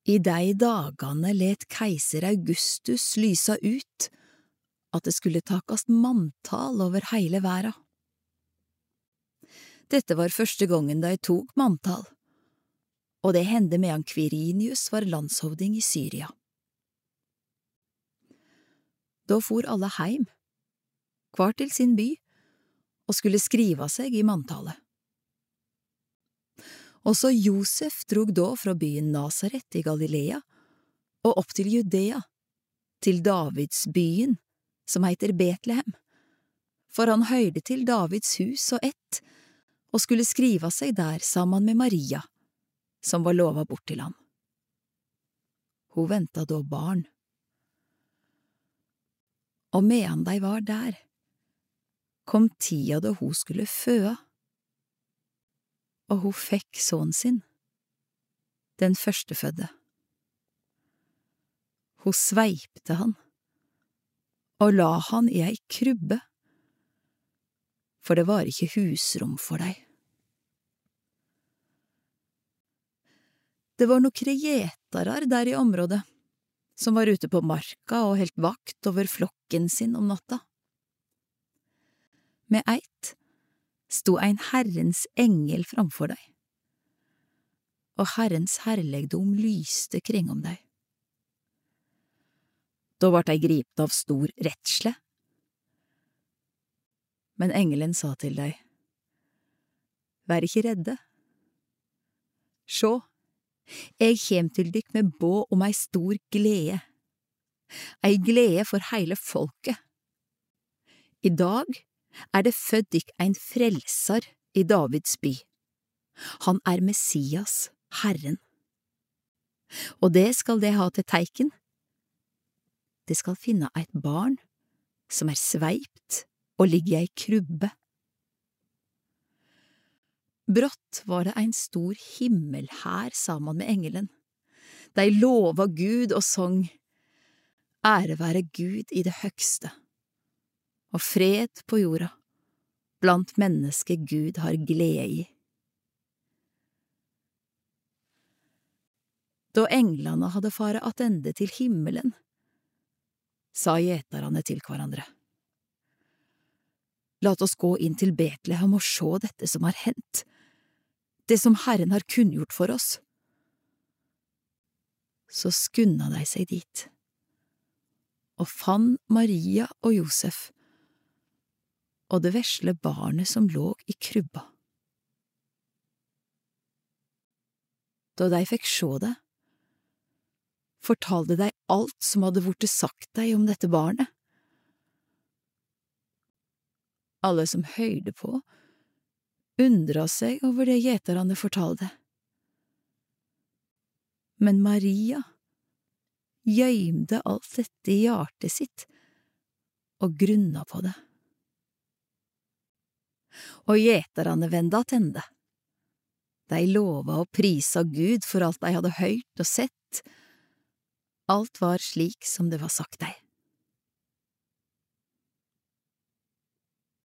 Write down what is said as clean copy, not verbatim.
I de dagane let keiser Augustus lysa ut at det skulle takast manntal over heile verda. Dette var første gongen de tok manntal, og det hendte medan Quirinius var landshovding i Syria. Da for alle heim, hver til sin by, og skulle skriva seg i manntallet. Også Josef drog da fra byen Nazaret i Galilea og opp til Judea, til Davids byen, som heter Betlehem, for han høyrde til Davids hus og ett, og skulle skriva seg der sammen med Maria, som var lova bort til han. Hun venta da barn. Og medan de var der, kom tida da hun skulle føa, og hun fikk sønnen sin, den førstefødde. Hun sveipte han, og la han i ei krybbe, for det var ikke husrom for dei. Det var nokre gjetarar der i området, som var ute på marka og helt vakt over flokken sin om natta. Med eit sto ein Herrens engel framfor deg, og Herrens herlegdom lyste kring om deg. Da vart dei gripet av stor redsle. Men engelen sa til deg, vær ikke redde. Sjå, jeg kjem til dykk med båd om ei stor glede, ei glede for heile folket. I dag det født dykk ein frelsar i Davids by. Han Messias, Herren. Og det skal det ha til teiken. Det skal finne eit barn som sveipt og ligger i ei krybbe. Brått var det ein stor himmelhær sammen med engelen. De lova Gud og sang, ære være Gud i det høgste, og fred på jorda, blant mennesker Gud har glede i. Da englene hadde fare attende til himmelen, sa gjetarane til hverandre, lat oss gå inn til Betlehem og sjå dette som har hendt, det som Herren har kunngjort for oss. Så skunda de seg dit, og fann Maria og Josef, og det vesle barnet som lå i krybba. Da de fikk sjå det, fortalte de alt som hadde vorte sagt deg om dette barnet. Alle som høyrde på, undra seg over det gjetarane fortalte. Men Maria gjøymde alt dette i hjertet sitt og grunna på det. Og gjetarane venda attende. De lova og prisa Gud for alt de hadde høyrt og sett. Alt var slik som det var sagt deg.